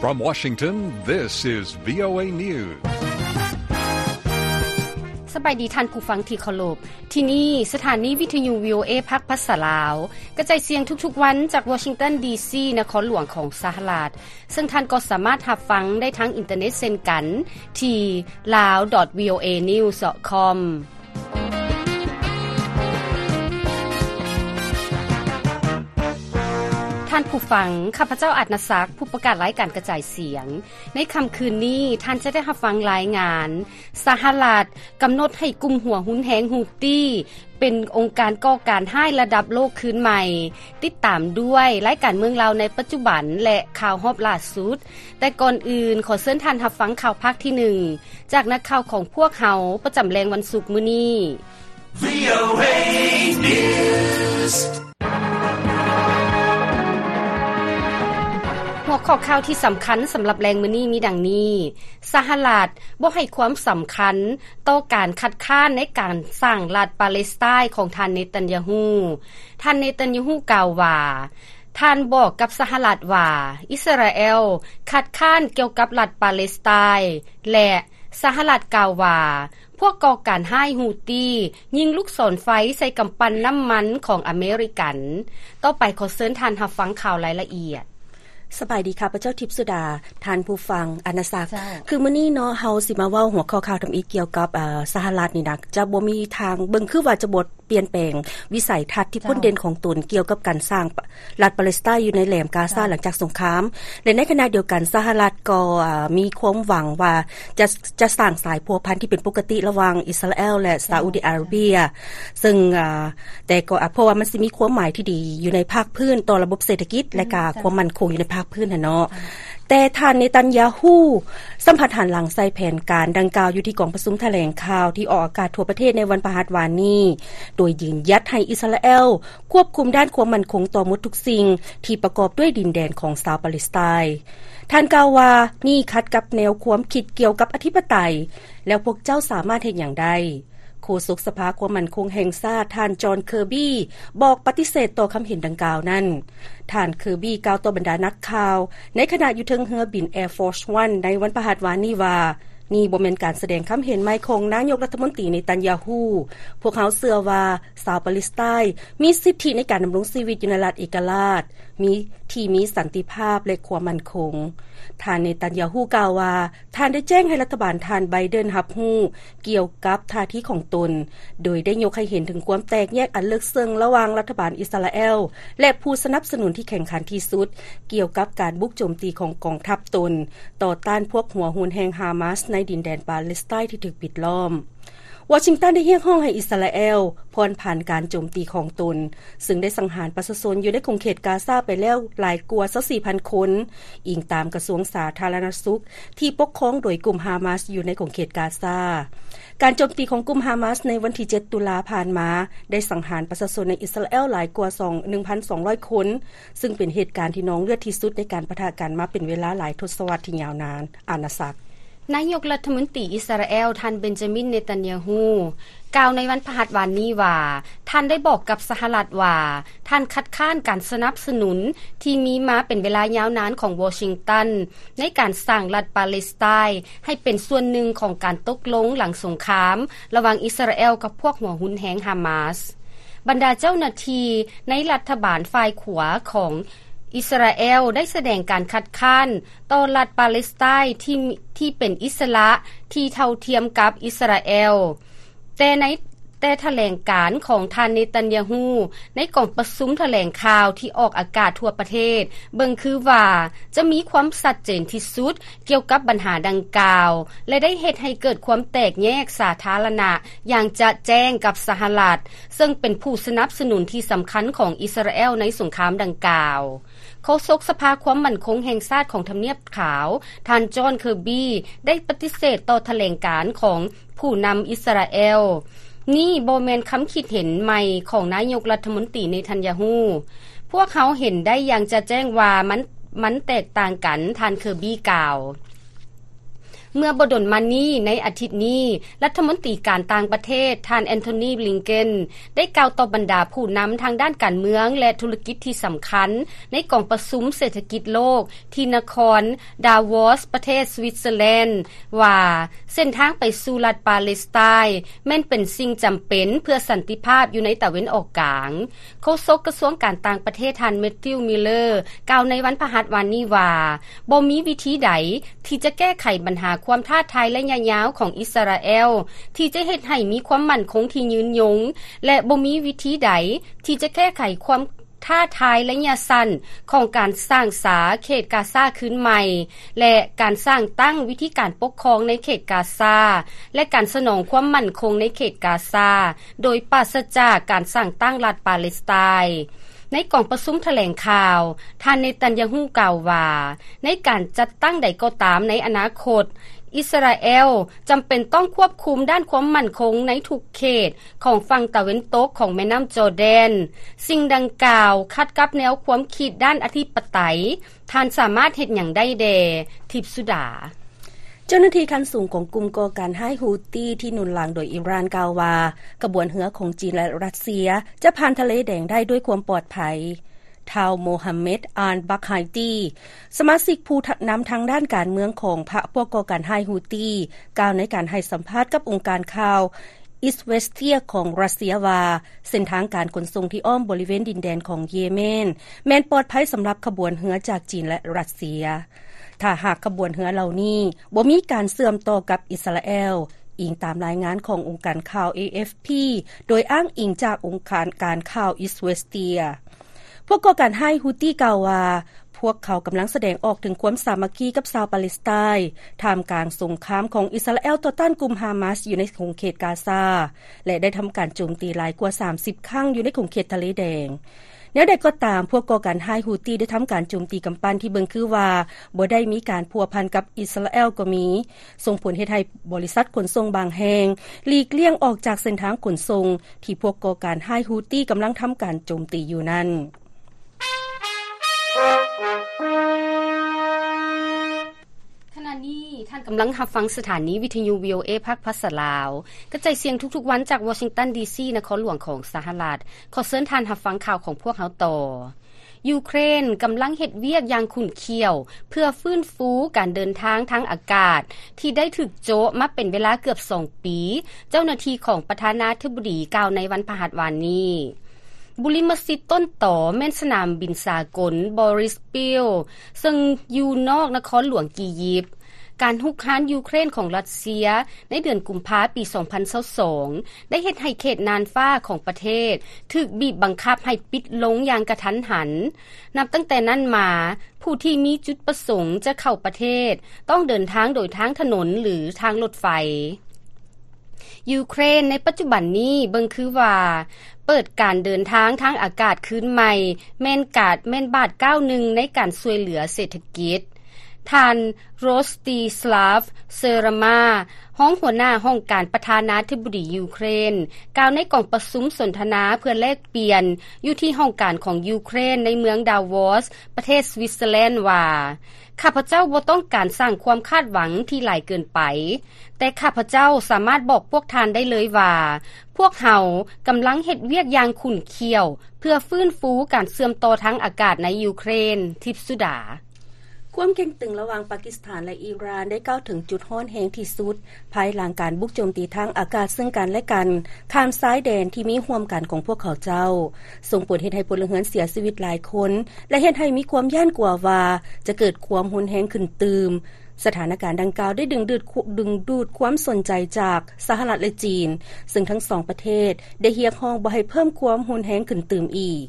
From Washington, this is VOA News. ສະບາຍດີທ່ານຜູ້ຟັງທີ່ເຄົາລົບ. ທີ່ນີ້ສະຖານີວິທະຍຸ VOA ພາກພາສາລາວ ກະຈາຍສຽງທຸກໆວັນຈາກວໍຊິງຕັນ ດີຊີ ນະຄອນຫຼວງຂອງສະຫະລັດ, ເຊິ່ງທ່ານກໍສາມາດຮັບຟັງໄດ້ທາງອິນເຕີເນັດເຊັ່ນກັນ ທີ່ lawdotvoanews.com. ທ່ານຜູ້ຟັງ, ຂ້າພະເຈົ້າ ອາດນະສັກ, ຜູ້ປະກາດລາຍການກະຈາຍສຽງ. ໃນຄ່ຳຄືນນີ້, ທ່ານຈະໄດ້ຮັບຟັງລາຍງານ ສະຫະລັດກຳນົດໃຫ້ກຸ່ມຫົວຮຸນແຮງ ຮຸດຕີ້ ເປັນອົງການກໍ່ການຮ້າຍລະດັບໂລກຄືນໃໝ່. ຕິດຕາມດ້ວຍລາຍການເມືອງລາວໃນປັດຈຸບັນ ແລະ ຂ່າວຮອບລ່າສຸດ. ແຕ່ກ່ອນອື່ນ, ຂໍເຊີນທ່ານຮັບຟັງຂ່າວພາກທີໜຶ່ງ ຈາກນັກຂ່າວຂອງພວກເຮົາ ປະຈຳແລງວັນສຸກມື້ນີ້. VOA News. ຫົວຂໍ້ຂ່າວທີ່ສຳຄັນສຳລັບແລງມື້ນີ້ມີດັ່ງນີ້: ສະຫະລັດບໍ່ໃຫ້ຄວາມສຳຄັນຕໍ່ການຄັດຄ້ານໃນການສ້າງລັດປາເລສໄຕນ໌ຂອງທ່ານ ເນຕັນຍາຮູ້. ທ່ານ ເນຕັນຍາຮູ້ ກ່າວວ່າ ທ່ານບອກກັບສະຫະລັດວ່າ ອິດສະຣາແອລຄັດຄ້ານກ່ຽວກັບລັດປາເລສໄຕນ໌ ແລະ ສະຫະລັດກ່າວວ່າ ພວກກໍ່ການຮ້າຍ ຮຸດຕີ້ ຍິງລູກສອນໄຟໃສ່ກຳປັ່ນນ້ຳມັນຂອງອາເມລິກັນ. ຕໍ່ໄປຂໍເຊີນທ່ານຮັບຟັງຂ່າວລາຍລະອຽດ. ສະບາຍດີ, ຂ້າພະເຈົ້າ ທິບສຸດາ, ທ່ານຜູ້ຟັງ ອານາສັກ. ເຈົ້າ. ຄືມື້ນີ້ເນາະ, ເຮົາຊິມາເວົ້າຫົວຂໍ້ຂ່າວທຳອິດກ່ຽວກັບ, ເອີ, ສະຫະລັດນີ້ນະ, ຈະບໍ່ມີທາງ, ເບິ່ງຄືວ່າຈະບໍ່ປ່ຽນແປງວິໄສທັດທີ່ພົ້ນເດັ່ນຂອງຕົນກ່ຽວກັບການສ້າງ ລັດປາເລສໄຕນ໌ຢູ່ໃນແຫຼມກາຊາ ເຈົ້າ ຫຼັງຈາກສົງຄາມ ແລະ ໃນຂະນະດຽວກັນ ສະຫະລັດກໍ, ເອີ, ມີຄວາມຫວັງວ່າຈະ, ຈະສ້າງສາຍພົວພັນທີ່ເປັນປົກກະຕິລະຫວ່າງອິດສະຣາແອລ ແລະ ຊາອຸດີອາຣາເບຍ ເຊິ່ງ, ເອີ, ແຕ່ກໍ, ເພາະວ່າມັນຊິມີຄວາມໝາຍທີ່ດີຢູ່ໃນພາກພື້ນຕໍ່ລະບົບເສດຖະກິດ ແລະ ກະຄວາມໝັ້ນຄົງຢູ່ໃນພາກພື້ນຫັ້ນເນາະ. ແຕ່ທ່ານ ເນຕັນຍາຮູ້ ສຳຜັດຫັນຫຼັງໃສ່ແຜນການດັ່ງກ່າວຢູ່ທີ່ກອງປະຊຸມຖະແຫຼງຂ່າວທີ່ອອກອາກາດທົ່ວປະເທດໃນວັນພະຫັດວານນີ້ ໂດຍຢືນຢັດໃຫ້ອິດສະຣາແອລຄວບຄຸມດ້ານຄວາມໝັ້ນຄົງຕໍ່ໝົດທຸກສິ່ງທີ່ປະກອບດ້ວຍດິນແດນຂອງຊາວປາເລສໄຕນ໌. ທ່ານກ່າວວ່າ, ນີ້ຂັດກັບແນວຄວາມຄິດກ່ຽວກັບອະທິປະໄຕ, ແລ້ວພວກເຈົ້າສາມາດເຮັດຫຍັງໄດ້? ໂຄສົກສະພາຄວາມໝັ້ນຄົງແຫ່ງຊາດ ທ່ານ ຈອນ ເຄີບີ ບອກປະຕິເສດຕໍ່ຄຳເຫັນດັ່ງກ່າວນັ້ນ. ທ່ານ ເຄີບີ ກ່າວຕໍ່ບັນດານັກຂ່າວໃນຂະນະຢູ່ເທິງເຮືອບິນ Air Force One ໃນວັນພະຫັດວານນີ້ວ່າ, ນີ້ບໍ່ແມ່ນການສະແດງຄຳເຫັນໃໝ່ຂອງນາຍົກລັດຖະມົນຕີ ເນຕັນຍາຮູ້. ພວກເຮົາເຊື່ອວ່າຊາວປາເລສໄຕນ໌ມີສິດທິໃນການດຳລົງຊີວິດຢູ່ໃນລັດເອກະລາດ ມີ, ທີ່ມີສັນຕິພາບ ແລະ ຄວາມໝັ້ນຄົງ. ທ່ານ ເນຕັນຍາຮູ້ ກ່າວວ່າ, ທ່ານໄດ້ແຈ້ງໃຫ້ລັດຖະບານທ່ານ ໄບເດັນ ຮັບຮູ້ກ່ຽວກັບທ່າທີຂອງຕົນ, ໂດຍໄດ້ຍົກໃຫ້ເຫັນເຖິງຄວາມແຕກແຍກອັນເລິກເຊິ່ງລະຫວ່າງລັດຖະບານອິດສະຣາແອລ ແລະ ຜູ້ສະໜັບສະໜູນທີ່ແຂ່ງຂັນທີ່ສຸດ ກ່ຽວກັບການບຸກໂຈມຕີຂອງກອງທັບຕົນ ຕໍ່ຕ້ານພວກຫົວຮຸນແຮງຮາມາສໃນດິນແດນປາເລສໄຕນ໌ທີ່ຖືກປິດລ້ອມ. ວໍຊິງຕັນໄດ້ຮຽກຮ້ອງໃຫ້ອິດສະຣາແອລຜ່ອນຜັນການໂຈມຕີຂອງຕົນ, ເຊິ່ງໄດ້ສັງຫານປະຊາຊົນຢູ່ໃນຂົງເຂດກາຊາໄປແລ້ວຫຼາຍກວ່າຊາວສີ່ພັນຄົນ, ອີງຕາມກະຊວງສາທາລະນະສຸກທີ່ປົກຄອງໂດຍກຸ່ມຮາມາສຢູ່ໃນຂົງເຂດກາຊາ. ການໂຈມຕີຂອງກຸ່ມຮາມາສໃນວັນທີເຈັດຕຸລາຜ່ານມາ ໄດ້ສັງຫານປະຊາຊົນໃນອິດສະຣາແອລຫຼາຍກວ່າສອງ, ໜຶ່ງພັນສອງຮ້ອຍຄົນ, ຊຶ່ງເປັນເຫດການທີ່ນອງເລືອດທີ່ສຸດໃນການປະທະກັນມາເປັນເວລາຫຼາຍທົດສະວັດທີ່ຍາວນານ. ອານາສັກ. ນາຍົກລັດຖະມົນຕີອິດສະຣາແອລ ທ່ານ ເບັນຈາມິນ ເນຕັນຍາຮູ້ ກ່າວໃນວັນພະຫັດວານນີ້ວ່າ, ທ່ານໄດ້ບອກກັບສະຫະລັດວ່າ ທ່ານຄັດຄ້ານການສະໜັບສະໜູນທີ່ມີມາເປັນເວລາຍາວນານຂອງວໍຊິງຕັນ ໃນການສ້າງລັດປາເລສໄຕນ໌ໃຫ້ເປັນສ່ວນໜຶ່ງຂອງການຕົກລົງຫຼັງສົງຄາມລະຫວ່າງອິດສະຣາແອລກັບພວກຫົວຮຸນແຮງຮາມາສ. ບັນດາເຈົ້າໜ້າທີ່ໃນລັດຖະບານຝ່າຍຂວາຂອງອິດສະຣາແອລໄດ້ສະແດງການຄັດຄ້ານຕໍ່ລັດປາເລສໄຕນ໌ທີ່, ທີ່ເປັນອິດສະຫຼະທີ່ເທົ່າທຽມກັບອິດສະຣາແອລ. ແຕ່ໃນ, ແຕ່ຖະແຫຼງການຂອງທ່ານ ເນຕັນຍາຮູ້ ໃນກອງປະຊຸມຖະແຫຼງຂ່າວທີ່ອອກອາກາດທົ່ວປະເທດ ເບິ່ງຄືວ່າຈະມີຄວາມຊັດເຈນທີ່ສຸດ ກ່ຽວກັບບັນຫາດັ່ງກ່າວ ແລະ ໄດ້ເຮັດໃຫ້ເກີດຄວາມແຕກແຍກສາທາລະນະຢ່າງຈະແຈ້ງກັບສະຫະລັດ, ເຊິ່ງເປັນຜູ້ສະໜັບສະໜູນທີ່ສຳຄັນຂອງອິດສະຣາແອລໃນສົງຄາມດັ່ງກ່າວ. ໂຄສົກສະພາຄວາມໝັ້ນຄົງແຫ່ງຊາດຂອງທຳນຽບຂາວ, ທ່ານ ຈອນ ເຄີບີ ໄດ້ປະຕິເສດຕໍ່ຖະແຫຼງການຂອງຜູ້ນຳອິດສະຣາແອລ. ນີ້ບໍ່ແມ່ນຄຳຄິດເຫັນໃໝ່ຂອງນາຍົກລັດຖະມົນຕີ ເນທັນຍາຮູ້. ພວກເຮົາເຫັນໄດ້ຢ່າງຈະແຈ້ງວ່າມັນ, ມັນແຕກຕ່າງກັນ, ທ່ານ ເຄີບີ ກ່າວ. ເມື່ອບໍ່ດົນມານີ້ ໃນອາທິດນີ້, ລັດຖະມົນຕີການຕ່າງປະເທດ ທ່ານ ແອນໂທນີ ບລິງເກັນ ໄດ້ກ່າວຕໍ່ບັນດາຜູ້ນຳທາງດ້ານການເມືອງ ແລະ ທຸລະກິດທີ່ສຳຄັນ ໃນກອງປະຊຸມເສດຖະກິດໂລກ ທີ່ນະຄອນ ດາວອສ ປະເທດ ສວິດເຊີແລນ ວ່າ ເສັ້ນທາງໄປສູ່ລັດປາເລສໄຕ ແມ່ນເປັນສິ່ງຈຳເປັນເພື່ອສັນຕິພາບຢູ່ໃນຕາເວັນອອກກາງ. ໂຄສົກກະຊວງການຕ່າງປະເທດ ທ່ານ ແມັດທິວ ມິລເລີ ກ່າວໃນວັນພະຫັດວານນີ້ວ່າ ບໍ່ມີວິທີໃດທີ່ຈະແກ້ໄຂບັນຫາຄວາມທ້າທາຍໄລຍະຍາວຂອງອິດສະຣາແອລ ທີ່ຈະເຮັດໃຫ້ມີຄວາມໝັ້ນຄົງທີ່ຍືນຍົງ ແລະ ບໍ່ມີວິທີໃດທີ່ຈະແກ້ໄຂຄວາມ ທ້າທາຍໄລຍະສັ້ນຂອງການສ້າງສາເຂດກາຊາຄືນໃໝ່ ແລະ ການສ້າງຕັ້ງວິທີການປົກຄອງໃນເຂດກາຊາ ແລະ ການສະໜອງຄວາມໝັ້ນຄົງໃນເຂດກາຊາ ໂດຍປາສະຈາກການສ້າງຕັ້ງລັດປາເລສໄຕ. ໃນກອງປະຊຸມຖະແຫຼງຂ່າວ, ທ່ານ ເນຕັນຍາຮູ້ ກ່າວວ່າ ໃນການຈັດຕັ້ງໃດກໍຕາມໃນອະນາຄົດ, ອິດສະຣາແອລຈຳເປັນຕ້ອງຄວບຄຸມດ້ານຄວາມໝັ້ນຄົງໃນທຸກເຂດ ຂອງຝັ່ງຕາເວັນຕົກຂອງແມ່ນ້ຳຈໍແດນ. ສິ່ງດັ່ງກ່າວຂັດກັບແນວຄວາມຄິດດ້ານອະທິປະໄຕ. ທ່ານສາມາດເຮັດຫຍັງໄດ້ແດ່? ທິບສຸດາ. ເຈົ້າໜ້າທີ່ຂັ້ນສູງຂອງກຸ່ມກໍ່ການຮ້າຍ Houthi ທີ່ໜູນຫຼັງໂດຍອີຣານ ກ່າວວ່າ ຂະບວນເຮືອຂອງຈີນ ແລະ ຣັດເຊຍ ຈະຜ່ານທະເລແດງໄດ້ດ້ວຍຄວາມປອດໄພ. ທ້າວ ໂມຮາເມັດ ອານ ບັກໄຮຕີ ສະມາຊິກຜູ້ນຳທາງດ້ານການເມືອງຂອງພະພວກກໍ່ການຮ້າຍ Houthi ກ່າວໃນການໃຫ້ສຳພາດກັບອົງການຂ່າວ Izvestia ຂອງຣັດເຊຍວ່າ ເສັ້ນທາງການຂົນສົ່ງທີ່ອ້ອມບໍລິເວນດິນແດນຂອງເຢເມນ ແມ່ນປອດໄພສຳລັບຂະບວນເຮືອຈາກຈີນ ແລະ ຣັດເຊຍ ຖ້າຫາກຂະບວນເຮືອເຫຼົ່ານີ້ບໍ່ມີການເຊື່ອມຕໍ່ກັບອິດສະຣາແອລ, ອີງຕາມລາຍງານຂອງອົງການຂ່າວ ເອເອັຟພີ ໂດຍອ້າງອີງຈາກອົງການການຂ່າວ Izvestia. ພວກກໍ່ການຮ້າຍ Houthi ກ່າວວ່າ ພວກເຂົາກຳລັງສະແດງອອກເຖິງຄວາມສາມັກຄີກັບຊາວປາເລສໄຕ ທ່າມກາງສົງຄາມຂອງອິດສະຣາແອລຕໍ່ຕ້ານກຸ່ມຮາມາສຢູ່ໃນຂົງເຂດກາຊາ ແລະ ໄດ້ທຳການໂຈມຕີຫຼາຍກວ່າສາມສິບຄັ້ງຢູ່ໃນຂົງເຂດທະເລແດງ. ແນວໃດກໍຕາມ, ພວກກໍ່ການຮ້າຍ Houthi ໄດ້ທຳການໂຈມຕີກຳປັ່ນທີ່ເບິ່ງຄືວ່າບໍ່ໄດ້ມີການພົວພັນກັບອິດສະຣາແອລກໍມີ, ສົ່ງຜົນເຮັດໃຫ້ບໍລິສັດຂົນສົ່ງບາງແຫ່ງຫຼີກລ່ຽງອອກຈາກເສັ້ນທາງຂົນສົ່ງທີ່ພວກກໍ່ການຮ້າຍ Houthi ກຳລັງທຳການໂຈມຕີຢູ່ນັ້ນ. ຂະນະນີ້ທ່ານກຳລັງຮັບຟັງສະຖານີວິທະຍຸ ວີໂອເອ ພາກພາສາລາວ ກະຈາຍສຽງທຸກໆວັນຈາກວໍຊິງຕັນ ດີຊີ ນະຄອນຫຼວງຂອງສະຫະລັດ. ຂໍເຊີນທ່ານຮັບຟັງຂ່າວຂອງພວກເຮົາຕໍ່. ຢູເຄຣນກຳລັງເຮັດວຽກຢ່າງຂຸ້ນຂ້ຽວ ເພື່ອຟື້ນຟູການເດີນທາງທາງອາກາດທີ່ໄດ້ຖືກໂຈະມາເປັນເວລາເກືອບສອງປີ, ເຈົ້າໜ້າທີ່ຂອງປະທານາທິບໍດີກ່າວໃນວັນພະຫັດວານນີ້. ບຸລິມະສິດຕົ້ນຕໍແມ່ນສະໜາມບິນສາກົນ Boris Field ເຊິ່ງຢູ່ນອກນະຄອນຫຼວງອີຢິບ. ການຮຸກຮານຢູເຄຣນຂອງຣັດເຊຍໃນເດືອນກຸມພາປີສອງພັນຊາວສອງ ໄດ້ເຮັດໃຫ້ເຂດນ່ານຟ້າຂອງປະເທດຖືກບີບບັງຄັບໃຫ້ປິດລົງຢ່າງກະທັນຫັນ. ນັບຕັ້ງແຕ່ນັ້ນມາ, ຜູ້ທີ່ມີຈຸດປະສົງຈະເຂົ້າປະເທດ ຕ້ອງເດີນທາງໂດຍທາງຖະໜົນ ຫຼື ທາງລົດໄຟ. ຢູເຄຣນໃນປັດຈຸບັນນີ້ເບິ່ງຄືວ່າເປີດການເດີນທາງທາງອາກາດຄືນໃໝ່ ແມ່ນກາດ ແມ່ນບາດກ້າວໜຶ່ງໃນການຊ່ວຍເຫຼືອເສດຖະກິດ. ທ່ານ ໂຣສຕີສລາຟ ເຊີຣາມາ ຮອງຫົວໜ້າຫ້ອງການປະທານາທິບໍດີຢູເຄຣນ ກ່າວໃນກອງປະຊຸມສົນທະນາເພື່ອແລກປ່ຽນຢູ່ທີ່ຫ້ອງການຂອງຢູເຄຣນໃນເມືອງດາວອສ ປະເທດສະວິດເຊີແລນວ່າ, ຂ້າພະເຈົ້າບໍ່ຕ້ອງການສ້າງຄວາມຄາດຫວັງທີ່ຫຼາຍເກີນໄປ, ແຕ່ຂ້າພະເຈົ້າສາມາດບອກພວກທ່ານໄດ້ເລີຍວ່າ ພວກເຮົາກຳລັງເຮັດວຽກຢ່າງຂຸ້ນຂ້ຽວ ເພື່ອຟື້ນຟູການເຊື່ອມຕໍ່ທາງອາກາດໃນຢູເຄຣນ. ທິບສຸດາ. ຄວາມເຄັ່ງຕຶງລະຫວ່າງປາກິສຖານ ແລະ ອີຣານ ໄດ້ກ້າວເຖິງຈຸດຮ້ອນແຮງທີ່ສຸດ ພາຍຫຼັງການບຸກໂຈມຕີທາງອາກາດເຊິ່ງກັນ ແລະ ກັນ ຂ້າມຊາຍແດນທີ່ມີຮ່ວມກັນຂອງພວກເຂົາເຈົ້າ, ສົ່ງຜົນເຮັດໃຫ້ພົນລະເຮືອນເສຍຊີວິດຫຼາຍຄົນ ແລະ ເຮັດໃຫ້ມີຄວາມຢ້ານກົວວ່າຈະເກີດຄວາມຮຸນແຮງຂຶ້ນຕື່ມ. ສະຖານະການດັ່ງກ່າວໄດ້ດຶງດູດ ດຶງດູດຄວາມສົນໃຈຈາກສະຫະລັດ ແລະ ຈີນ, ເຊິ່ງທັງສອງປະເທດໄດ້ຮຽກຮ້ອງບໍ່ໃຫ້ເພີ່ມຄວາມຮຸນແຮງຂຶ້ນຕື່ມອີກ.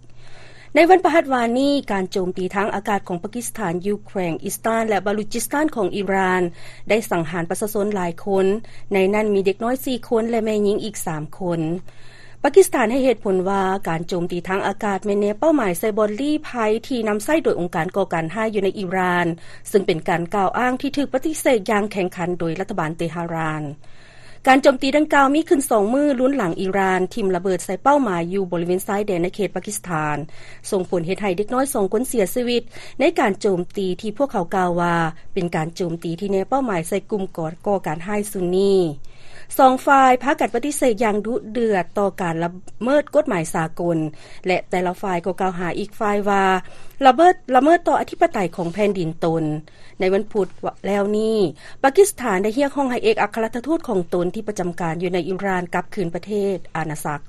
ໃນວັນພະຫັດວານນີ້, ການໂຈມຕີທາງອາກາດຂອງປາກິສຖານ, ຢູ່ແຂວງອິສຕານ ແລະ ບາລູຈິສຕານຂອງອີຣານ ໄດ້ສັງຫານປະຊາຊົນຫຼາຍຄົນ, ໃນນັ້ນມີເດັກນ້ອຍສີ່ຄົນ ແລະ ແມ່ຍິງອີກສາມຄົນ. ປາກິສຖານໃຫ້ເຫດຜົນວ່າ ການໂຈມຕີທາງອາກາດແມ່ນແນເປົ້າໝາຍໃສ່ບ່ອນລີ້ໄພທີ່ນຳໃຊ້ໂດຍອົງການກໍ່ການຮ້າຍຢູ່ໃນອີຣານ, ເຊິ່ງເປັນການກ່າວອ້າງທີ່ຖືກປະຕິເສດຢ່າງແຂງຂັນໂດຍລັດຖະບານເຕຫະຣານ. ການໂຈມຕີດັ່ງກ່າວມີຂຶ້ນສອງມື້ ລຸນຫຼັງອີຣານຖິ້ມລະເບີດໃສ່ເປົ້າໝາຍຢູ່ບໍລິເວນຊາຍແດນໃນເຂດປາກິສຖານ, ສົ່ງຜົນເຮັດໃຫ້ເດັກນ້ອຍສອງຄົນເສຍຊີວິດໃນການໂຈມຕີທີ່ພວກເຂົາກ່າວວ່າເປັນການໂຈມຕີທີ່ແນເປົ້າໝາຍໃສ່ກຸ່ມກໍ່ ກໍ່ການຮ້າຍຊຸນນີ. ສອງຝ່າຍພາກັນປະຕິເສດຢ່າງດຸເດືອດຕໍ່ການລະເມີດກົດໝາຍສາກົນ ແລະ ແຕ່ລະຝ່າຍກໍກ່າວຫາອີກຝ່າຍວ່າລະເມີດ ລະເມີດຕໍ່ອະທິປະໄຕຂອງແຜ່ນດິນຕົນ. ໃນວັນພຸດແລ້ວນີ້, ປາກິສຖານໄດ້ຮຽກຮ້ອງໃຫ້ເອກອັຄລັດທູດຂອງຕົນທີ່ປະຈຳການຢູ່ໃນອີຣານກັບຄືນປະເທດອານາຈັກ.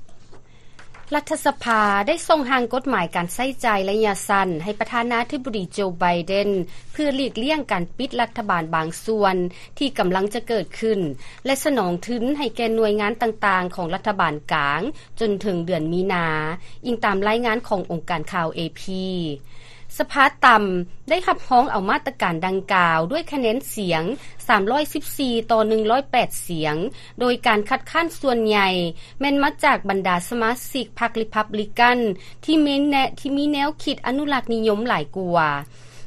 ລັດຖະສະພາໄດ້ສົ່ງຮ່າງກົດໝາຍການໃຊ້ຈ່າຍໄລຍະສັ້ນໃຫ້ປະທານາທິບໍດີໂຈ ໄບເດັນ ເພື່ອຫຼີກລ່ຽງການປິດລັດຖະບານບາງສ່ວນທີ່ກຳລັງຈະເກີດຂຶ້ນ ແລະ ສະໜອງທຶນໃຫ້ແກ່ໜ່ວຍງານຕ່າງໆຂອງລັດຖະບານກາງຈົນເຖິງເດືອນມີນາ, ອີງຕາມລາຍງານຂອງອົງການຂ່າວ ເອພີ. ສະພາຕ່ຳໄດ້ຮັບຮອງເອົາມາດຕະການດັ່ງກ່າວດ້ວຍຄະແນນສຽງສາມຮ້ອຍສິບສີ່ຕໍ່ໜຶ່ງຮ້ອຍແປດສຽງ, ໂດຍການຄັດຄ້ານສ່ວນໃຫຍ່ແມ່ນມາຈາກບັນດາສະມາຊິກພັກຣີພັບບລິກັນທີ່ມີແນ ທີ່ມີແນວຄິດອະນຸລັກນິຍົມຫຼາຍກວ່າ.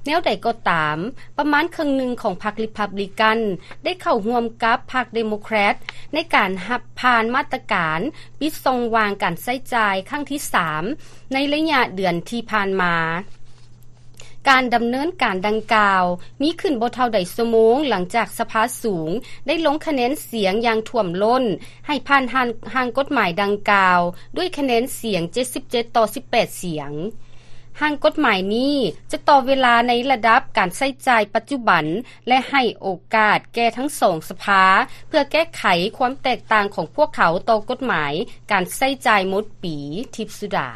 ແນວໃດກໍຕາມ, ປະມານເຄິ່ງໜຶ່ງຂອງພັກຣີພັບບລິກັນໄດ້ເຂົ້າຮ່ວມກັບພັກເດໂມແຄຣດໃນການຮັບຜ່ານມາດຕະການປິດຊ່ອງວ່າງການໃຊ້ຈ່າຍຄັ້ງທີສາມ ໃນໄລຍະເດືອນທີ່ຜ່ານມາ. ການດຳເນີນການດັ່ງກ່າວມີຂຶ້ນບໍ່ເທົ່າໃດຊົ່ວໂມງ ຫຼັງຈາກສະພາສູງໄດ້ລົງຄະແນນສຽງຢ່າງຖ້ວມລົ້ນໃຫ້ຜ່ານຮ່າງ ຮ່າງກົດໝາຍດັ່ງກ່າວດ້ວຍຄະແນນສຽງເຈັດສິບເຈັດຕໍ່ສິບແປດສຽງ. ຮ່າງກົດໝາຍນີ້ຈະຕໍ່ເວລາໃນລະດັບການໃຊ້ຈ່າຍປັດຈຸບັນ ແລະ ໃຫ້ໂອກາດແກ່ທັງສອງສະພາເພື່ອແກ້ໄຂຄວາມແຕກຕ່າງຂອງພວກເຂົາຕໍ່ກົດໝາຍການໃຊ້ຈ່າຍໝົດປີ. ທິບສຸດາ.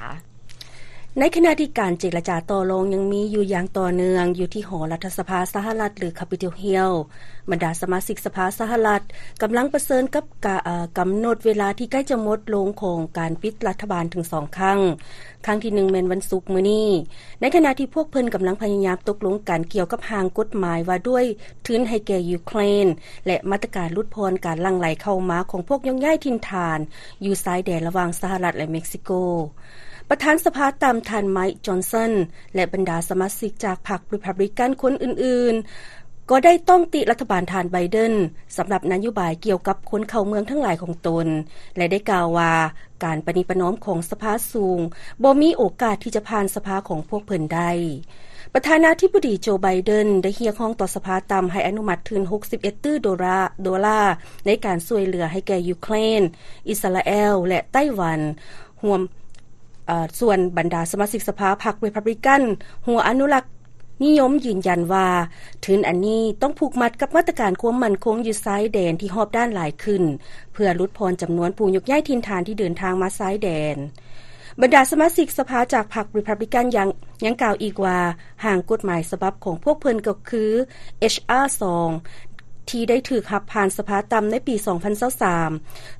ໃນຂະນະທີ່ການເຈລະຈາຕໍ່ລອງຍັງມີຢູ່ຢ່າງຕໍ່ເນື່ອງຢູ່ທີ່ຫໍລັດຖະສະພາສະຫະລັດ ຫຼື Capitol Hill, ບັນດາສະມາຊິກສະພາສະຫະລັດກຳລັງປະເຊີນກັບກາ ເອີ ກຳນົດເວລາທີ່ໃກ້ຈະໝົດລົງຂອງການປິດລັດຖະບານເຖິງສອງຄັ້ງ. ຄັ້ງທີໜຶ່ງແມ່ນວັນສຸກມື້ນີ້, ໃນຂະນະທີ່ພວກເພິ່ນກຳລັງພະຍາຍາມຕົກລົງກັນກ່ຽວກັບຮ່າງກົດໝາຍວ່າດ້ວຍທຶນໃຫ້ແກ່ຢູເຄຣນ ແລະ ມາດຕະການຫຼຸດຜ່ອນການຫຼັ່ງໄຫຼເຂົ້າມາຂອງພວກໂຍກຍ້າຍຖິ່ນຖານຢູ່ຊາຍແດນລະຫວ່າງສະຫະລັດ ແລະ ເມັກຊິໂກ. ປະທານສະພາຕ່ຳທ່ານ Mike Johnson ແລະ ບັນດາສະມາຊິກຈາກພັກຣີພັບບລິກັນຄົນອື່ນໆ ກໍໄດ້ຕ້ອງຕິລັດຖະບານທ່ານ Biden ສຳລັບນະໂຍບາຍກ່ຽວກັບຄົນເຂົ້າເມືອງທັງຫຼາຍຂອງຕົນ ແລະ ໄດ້ກ່າວວ່າ ການປະນີປະນອມຂອງສະພາສູງບໍ່ມີໂອກາດທີ່ຈະຜ່ານສະພາຂອງພວກເພິ່ນໄດ້. ປະທານາທິບໍດີໂຈ ໄບເດັນ ໄດ້ຮຽກຮ້ອງຕໍ່ສະພາຕ່ຳໃຫ້ອະນຸມັດທຶນຫົກສິບເອັດຕື້ໂດລາ ໂດລາ ໃນການຊ່ວຍເຫຼືອໃຫ້ແກ່ຢູເຄຣນ, ອິດສະຣາແອລ ແລະ ໄຕ້ຫວັນ. ຮ່ວມ ເອີ ສ່ວນບັນດາສະມາຊິກສະພາພັກຣີພັບບລິກັນ ຫົວອະນຸລັກ ນິຍົມຢືນຢັນວ່າ ທຶນອັນນີ້ຕ້ອງຜູກມັດກັບມາດຕະການຄວາມໝັ້ນຄົງຢູ່ຊາຍແດນທີ່ຮອບດ້ານຫຼາຍຂຶ້ນ ເພື່ອຫຼຸດຜ່ອນຈຳນວນຜູ້ຍົກຍ້າຍຖິ່ນຖານທີ່ເດີນທາງມາຊາຍແດນ. ບັນດາສະມາຊິກສະພາຈາກພັກຣີພັບບລິກັນຍັງ ຍັງກ່າວອີກວ່າ ຮ່າງກົດໝາຍສະບັບຂອງພວກເພິ່ນກໍຄື ເອັດຊາ ສອງ ທີ່ໄດ້ຖືກຮັບຜ່ານສະພາຕ່ຳໃນປີສອງພັນຊາວສາມ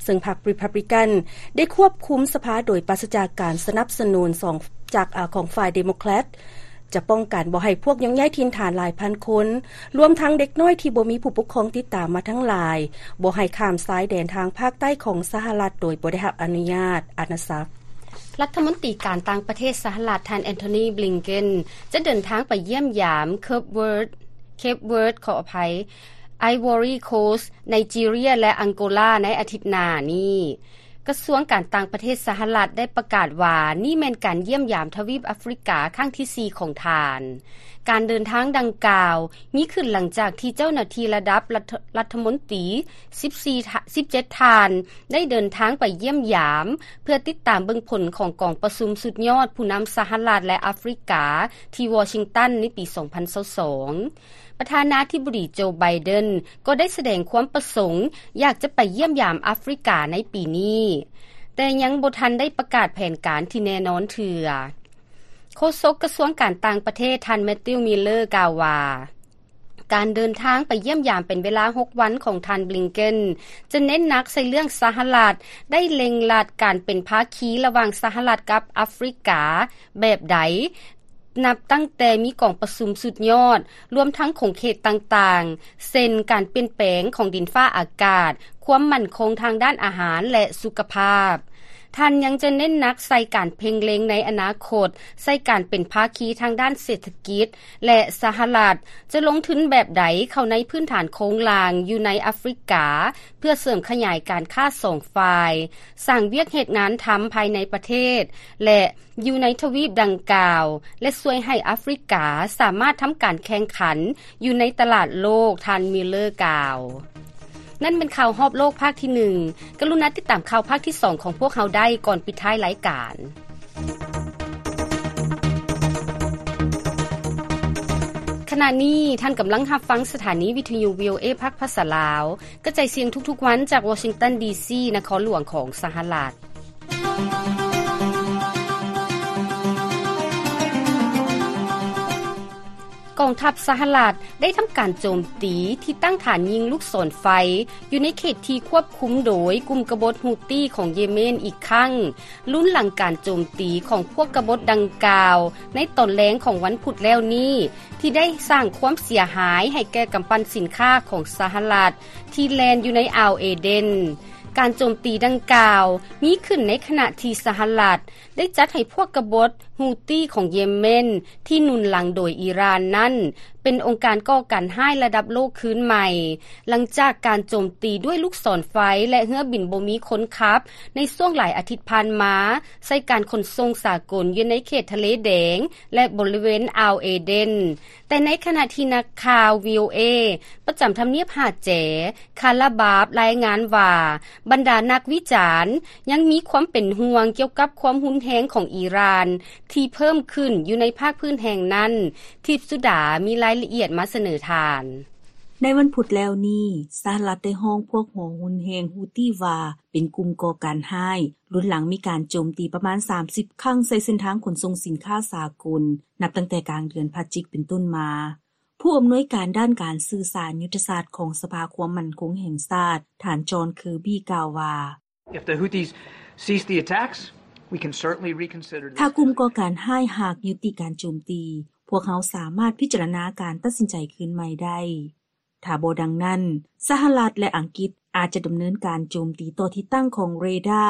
ເຊິ່ງພັກຣີພັບບລິກັນໄດ້ຄວບຄຸມສະພາໂດຍປາສະຈາກການສະໜັບສະໜູນສອງ ຈາກ ອາ ຂອງຝ່າຍເດໂມແຄຣດ ຈະປ້ອງກັນບໍ່ໃຫ້ພວກຍົກຍ້າຍຖິ່ນຖານຫຼາຍພັນຄົນ, ລວມທັງເດັກນ້ອຍທີ່ບໍ່ມີຜູ້ປົກຄອງຕິດຕາມມາທັງຫຼາຍ, ບໍ່ໃຫ້ຂ້າມຊາຍແດນທາງພາກໃຕ້ຂອງສະຫະລັດໂດຍບໍ່ໄດ້ຮັບອະນຸຍາດອານາຈັກ. ລັດຖະມົນຕີການຕ່າງປະເທດສະຫະລັດ ທ່ານ Antony Blinken ຈະເດີນທາງໄປຢ້ຽມຢາມ Cape Verde, Cape Verde ຂໍອະໄພ, Ivory Coast, Nigeria ແລະ Angola ໃນອາທິດໜ້ານີ້. ກະຊວງການຕ່າງປະເທດສະຫະລັດໄດ້ປະກາດວ່າ ນີ້ແມ່ນການຢ້ຽມຢາມທະວີບອາຟຣິກາຄັ້ງທີສີ່ຂອງທ່ານ. ການເດີນທາງດັ່ງກ່າວມີຂຶ້ນຫຼັງຈາກທີ່ເຈົ້າໜ້າທີ່ລະດັບລັດຖະ ລັດຖະມົນຕີສິບສີ່ ສິບເຈັດທ່ານ ໄດ້ເດີນທາງໄປຢ້ຽມຢາມ ເພື່ອຕິດຕາມເບິ່ງຜົນຂອງກອງປະຊຸມສຸດຍອດຜູ້ນຳສະຫະລັດ ແລະ ອາຟຣິກາ ທີ່ວໍຊິງຕັນໃນປີສອງພັນຊາວສອງ. ປະທານາທິບໍດີໂຈ ໄບເດັນ ກໍໄດ້ສະແດງຄວາມປະສົງຢາກຈະໄປຢ້ຽມຢາມອາຟຣິກາໃນປີນີ້, ແຕ່ຍັງບໍ່ທັນໄດ້ປະກາດແຜນການທີ່ແນ່ນອນເທື່ອ. ໂຄສົກກະຊວງການຕ່າງປະເທດ ທ່ານ Matthew Miller ກ່າວວ່າ ການເດີນທາງໄປຢ້ຽມຢາມເປັນເວລາຫົກວັນຂອງທ່ານ Blinken ຈະເນັ້ນໜັກໃສ່ເລື່ອງສະຫະລັດໄດ້ເລັ່ງລັດການເປັນພາຄີລະຫວ່າງສະຫະລັດກັບອາຟຣິກາແບບໃດ ນັບຕັ້ງແຕ່ມີກອງປະຊຸມສຸດຍອດ ລວມທັງຂົງເຂດຕ່າງໆ ເຊັ່ນ ການປ່ຽນແປງຂອງດິນຟ້າອາກາດ, ຄວາມໝັ້ນຄົງທາງດ້ານອາຫານ ແລະ ສຸຂະພາບ. ທ່ານຍັງຈະເນັ້ນໜັກໃສ່ການເພັ່ງເລັງໃນອະນາຄົດ ໃສ່ການເປັນພາຄີທາງດ້ານເສດຖະກິດ ແລະ ສະຫະລັດຈະລົງທຶນແບບໃດເຂົ້າໃນພື້ນຖານໂຄງລ່າງຢູ່ໃນອາຟຣິກາ ເພື່ອເສີມຂະຫຍາຍການຄ້າສອງຝ່າຍ, ສ້າງວຽກເຮັດງານທຳພາຍໃນປະເທດ ແລະ ຢູ່ໃນທະວີບດັ່ງກ່າວ ແລະ ຊ່ວຍໃຫ້ອາຟຣິກາສາມາດທຳການແຂ່ງຂັນຢູ່ໃນຕະຫຼາດໂລກ, ທ່ານ Miller ກ່າວ. ນັ້ນແມ່ນຂ່າວຮອບໂລກພາກທີໜຶ່ງ. ກະລຸນາຕິດຕາມຂ່າວພາກທີສອງຂອງພວກເຮົາໄດ້ກ່ອນປິດທ້າຍລາຍການ. ຂະນະນີ້ທ່ານກຳລັງຮັບຟັງສະຖານີວິທະຍຸ VOA ພາກພາສາລາວ ກະຈາຍສຽງທຸກໆວັນຈາກວໍຊິງຕັນ ດີຊີ ນະຄອນຫຼວງຂອງສະຫະລັດ. ກອງທັບສະຫະລັດໄດ້ທຳການໂຈມຕີທີ່ຕັ້ງຖານຍິງລູກສອນໄຟຢູ່ໃນເຂດທີ່ຄວບຄຸມໂດຍກຸ່ມກະບົດຮູ້ຕີຂອງເຢເມນອີກຄັ້ງ, ລຸນຫຼັງການໂຈມຕີຂອງພວກກະບົດດັ່ງກ່າວໃນຕອນແລງຂອງວັນພຸດແລ້ວນີ້ ທີ່ໄດ້ສ້າງຄວາມເສຍຫາຍໃຫ້ແກ່ກຳປັ່ນສິນຄ້າຂອງສະຫະລັດທີ່ແລ່ນຢູ່ໃນອ່າວເອເດນ. ການໂຈມຕີດັ່ງກ່າວມີຂຶ້ນໃນຂະນະທີ່ສະຫະລັດ ໄດ້ຈັດໃຫ້ພວກກະບົດຮູ້ຕີຂອງເຢເມນທີ່ໜູນຫຼັງໂດຍອີຣານນັ້ນ ເປັນອົງການກໍ່ການຮ້າຍລະດັບໂລກຄືນໃໝ່, ຫຼັງຈາກການໂຈມຕີດ້ວຍລູກສອນໄຟ ແລະ ເຮືອບິນບໍ່ມີຄົນຂັບໃນຊ່ວງຫຼາຍອາທິດຜ່ານມາ ໃສ່ການຂົນສົ່ງສາກົນຢູ່ໃນເຂດທະເລແດງ ແລະ ບໍລິເວນອ່າວເອເດນ. ແຕ່ໃນຂະນະທີ່ນັກຂ່າວ VOA ປະຈຳທຳນຽບຫາແຈ ຄາລາບາບ ລາຍງານວ່າ ບັນດານັກວິຈານຍັງມີຄວາມເປັນຫ່ວງກ່ຽວກັບຄວາມຮຸນແຮງຂອງອີຣານທີ່ເພີ່ມຂຶ້ນຢູ່ໃນພາກພື້ນແຫ່ງນັ້ນ. ທິບສຸດາມີລາຍລະອຽດມາສະເໜີທ່ານ. ໃນວັນພຸດແລ້ວນີ້ ສະຫະລັດໄດ້ຮ້ອງພວກຫົວຮຸນແຮງຮູ້ຕີວ່າເປັນກຸ່ມກໍ່ການຮ້າຍ, ລຸນຫຼັງມີການໂຈມຕີປະມານສາມສິບຄັ້ງໃສ່ເສັ້ນທາງຂົນສົ່ງສິນຄ້າສາກົນ ນັບຕັ້ງແຕ່ກາງເດືອນພະຈິກເປັນຕົ້ນມາ. ຜູ້ອຳນວຍການດ້ານການສື່ສານຍຸດທະສາດຂອງສະພາຄວາມໝັ້ນຄົງແຫ່ງຊາດ ທ່ານ ຈອນ ເຄີບີ ກ່າວວ່າ If the Houthis cease the attacks, we can certainly reconsider this. ຖ້າກຸ່ມກໍ່ການຮ້າຍຫາກຍຸຕິການໂຈມຕີ, ພວກເຮົາສາມາດພິຈາລະນາການຕັດສິນໃຈຄືນໃໝ່ໄດ້. ຖ້າບໍ່ດັ່ງນັ້ນ, ສະຫະລັດ ແລະ ອັງກິດອາດຈະດຳເນີນການໂຈມຕີຕໍ່ທີ່ຕັ້ງຂອງເຣດາ,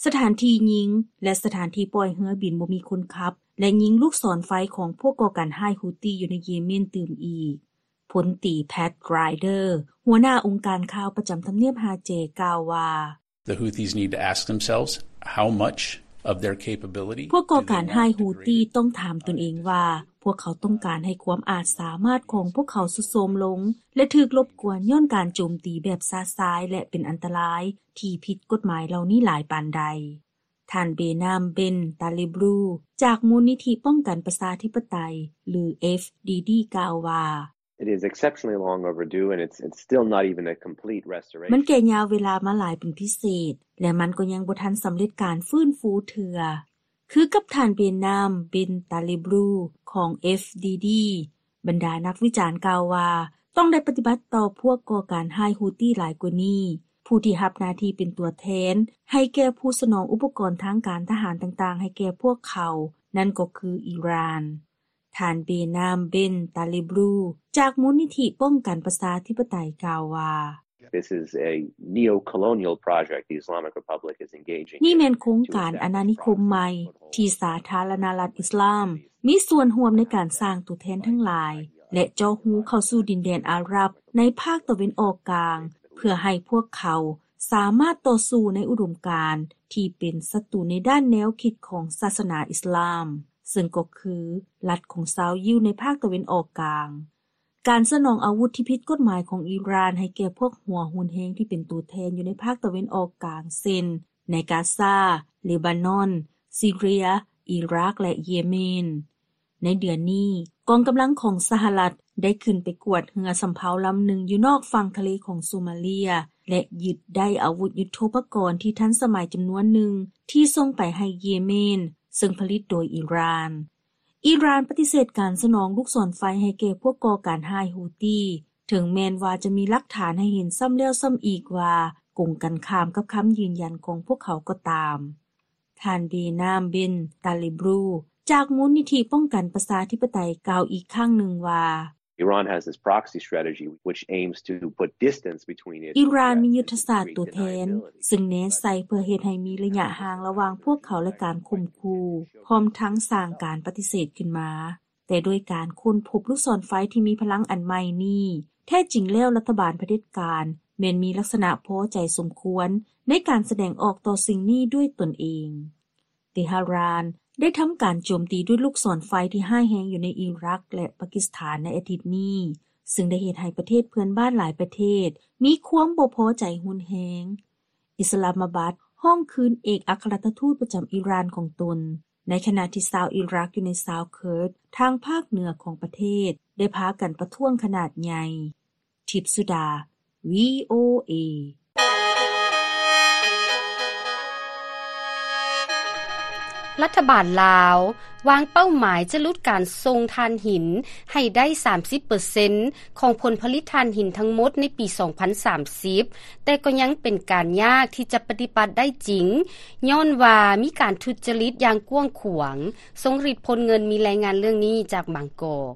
ສະຖານທີ່ຍິງ ແລະ ສະຖານທີ່ປ່ອຍເຮືອບິນບໍ່ມີຄົນຂັບ ແລະ ຍິງລູກສອນໄຟຂອງພວກກໍ່ການຮ້າຍຮູ້ຕີຢູ່ໃນເຢເມນຕື່ມອີກ. ພົນຕີ ແພັດ ກຣາຍເດີ ຫົວໜ້າອົງການຂ່າວປະຈຳທຳນຽບຮາເຈ ກ່າວວ່າ The Houthis need to ask themselves how much of their capability ພວກກໍ່ການຮ້າຍຮູ້ຕີຕ້ອງຖາມຕົນເອງວ່າ ພວກເຂົາຕ້ອງການໃຫ້ຄວາມອາດສາມາດຂອງພວກເຂົາຊຸດໂຊມລົງ ແລະ ຖືກລົບກວນຍ້ອນການໂຈມຕີແບບຊະຊາຍ ແລະ ເປັນອັນຕະລາຍທີ່ຜິດກົດໝາຍເຫຼົ່ານີ້ຫຼາຍປານໃດ. ທ່ານ ເບນາມ ເບນ ຕາລີບລູ ຈາກມູນນິທິປ້ອງກັນປະຊາທິປະໄຕ ຫຼື FDD ກ່າວວ່າ It is exceptionally long overdue and it's, it's still not even a complete restoration. ມັນແກ່ຍາວເວລາມາຫຼາຍເປັນພິເສດ ແລະ ມັນກໍຍັງບໍ່ທັນສຳເລັດການຟື້ນຟູເທື່ອ. ຄືກັບທ່ານ ເບນາມ ເບນ ຕາລີບລູ ຂອງ FDD ບັນດານັກວິຈານກ່າວວ່າ ຕ້ອງໄດ້ປະຕິບັດຕໍ່ພວກກໍ່ການຮ້າຍຮູ້ຕີຫຼາຍກວ່ານີ້, ຜູ້ທີ່ຮັບໜ້າທີ່ເປັນຕົວແທນໃຫ້ແກ່ຜູ້ສະໜອງອຸປະກອນທາງການທະຫານຕ່າງໆໃຫ້ແກ່ພວກເຂົາ, ນັ້ນກໍຄືອີຣານ. ທ່ານ ເບນາມ ເບນ ຕາລີບລູ ຈາກມູນນິທິປ້ອງກັນປະຊາທິປະໄຕ ກ່າວວ່າ This is a neo-colonial project the Islamic Republic is engaging in. ນີ້ແມ່ນໂຄງການອານານິຄົມໃໝ່ທີ່ສາທາລະນະລັດອິສລາມມີສ່ວນຮ່ວມໃນການສ້າງຕົວແທນທັງຫຼາຍ ແລະ ເຈາະຮູເຂົ້າສູ່ດິນແດນອາຣັບໃນພາກຕາເວັນອອກກາງ ເພື່ອໃຫ້ພວກເຂົາສາມາດຕໍ່ສູ້ໃນອຸດົມການທີ່ເປັນສັດຕູໃນດ້ານແນວຄິດຂອງສາສະໜາອິສລາມ, ເຊິ່ງກໍຄືລັດຂອງຊາວຢິວໃນພາກຕາເວັນອອກກາງ. ການສະໜອງອາວຸດທີ່ຜິດກົດໝາຍຂອງອີຣານໃຫ້ແກ່ພວກຫົວຮຸນແຮງທີ່ເປັນຕົວແທນຢູ່ໃນພາກຕາເວັນອອກກາງ ເຊັ່ນ ໃນກາຊາ, ເລບານອນ, ຊີເຣຍ, ອີຣາກ ແລະ ເຢເມນ. ໃນເດືອນນີ້, ກອງກຳລັງຂອງສະຫະລັດໄດ້ຂຶ້ນໄປກວດເຮືອສຳເພົາລຳໜຶ່ງຢູ່ນອກຝັ່ງທະເລຂອງໂຊມາເລຍ ແລະ ຍຶດໄດ້ອາວຸດຍຸດໂທປະກອນທີ່ທັນສະໄໝຈຳນວນໜຶ່ງທີ່ສົ່ງໄປໃຫ້ເຢເມນ, ເຊິ່ງຜະລິດໂດຍອີຣານ. ອີຣານປະຕິເສດການສະໜອງລູກສອນໄຟໃຫ້ແກ່ພວກກໍ່ການຮ້າຍຮູ້ຕີ, ເຖິງແມ່ນວ່າຈະມີຫຼັກຖານໃຫ້ເຫັນຊ້ຳແລ້ວຊ້ຳອີກວ່າກົງກັນຂ້າມກັບຄຳຢືນຢັນຂອງພວກເຂົາກໍຕາມ. ທ່ານ ເບນາມ ເບນ ຕາລີບລູ ຈາກມູນນິທິປ້ອງກັນປະຊາທິປະໄຕ ກ່າວອີກຄັ້ງໜຶ່ງວ່າ Iran has this proxy strategy which aims to put distance between it ອີຣານມີຍຸດທະສາດຕົວແທນ ຊຶ່ງເນັ້ນໃສ່ເພື່ອເຮັດໃຫ້ມີໄລຍະຫ່າງລະຫວ່າງພວກເຂົາ ແລະ ການຂົ່ມຂູ່ ພ້ອມທັງສ້າງການປະຕິເສດຂຶ້ນມາ. ແຕ່ໂດຍການຄົ້ນພົບລູກສອນໄຟທີ່ມີພະລັງອັນໃໝ່ນີ້, ແທ້ຈິງແລ້ວລັດຖະບານຜະເດັດການແມ່ນມີລັກສະນະພໍໃຈສົມຄວນໃນການສະແດງອອກຕໍ່ສິ່ງນີ້ດ້ວຍຕົນເອງ. ເຕຫະຣານໄດ້ທຳການໂຈມຕີດ້ວຍລູກສອນໄຟທີ່ຮ້າຍແຮງຢູ່ໃນອີຣັກ ແລະ ປາກິສຖານໃນອາທິດນີ້, ຊຶ່ງໄດ້ເຮັດໃຫ້ປະເທດເພື່ອນບ້ານຫຼາຍປະເທດມີຄວາມບໍ່ພໍໃຈຮຸນແຮງ. ອິດສະລາມມາບັດຮ້ອງຄືນເອກອັກຄະລັດຖະທູດປະຈຳອີຣານຂອງຕົນ, ໃນຂະນະທີ່ຊາວອີຣັກຢູ່ໃນຊາວເຄີດທາງພາກເໜືອຂອງປະເທດ ໄດ້ພາກັນປະທ້ວງຂະໜາດໃຫຍ່. ທິບສຸດາ ວີໂອເອ. ລັດຖະບານລາວວາງເປົ້າໝາຍຈະຫຼຸດການສົ່ງຖ່ານຫີນໃຫ້ໄດ້ສາມສິບເປີເຊັນຂອງຜົນຜະລິດຖ່ານຫີນທັງໝົດໃນປີສອງພັນສາມສິບ, ແຕ່ກໍຍັງເປັນການຍາກທີ່ຈະປະຕິບັດໄດ້ຈິງ, ຍ້ອນວ່າມີການທຸດຈະລິດຢ່າງກວ້າງຂວາງ. ຊົງລິດ ພົນເງິນ ມີລາຍງານເລື່ອງນີ້ຈາກບາງກອກ.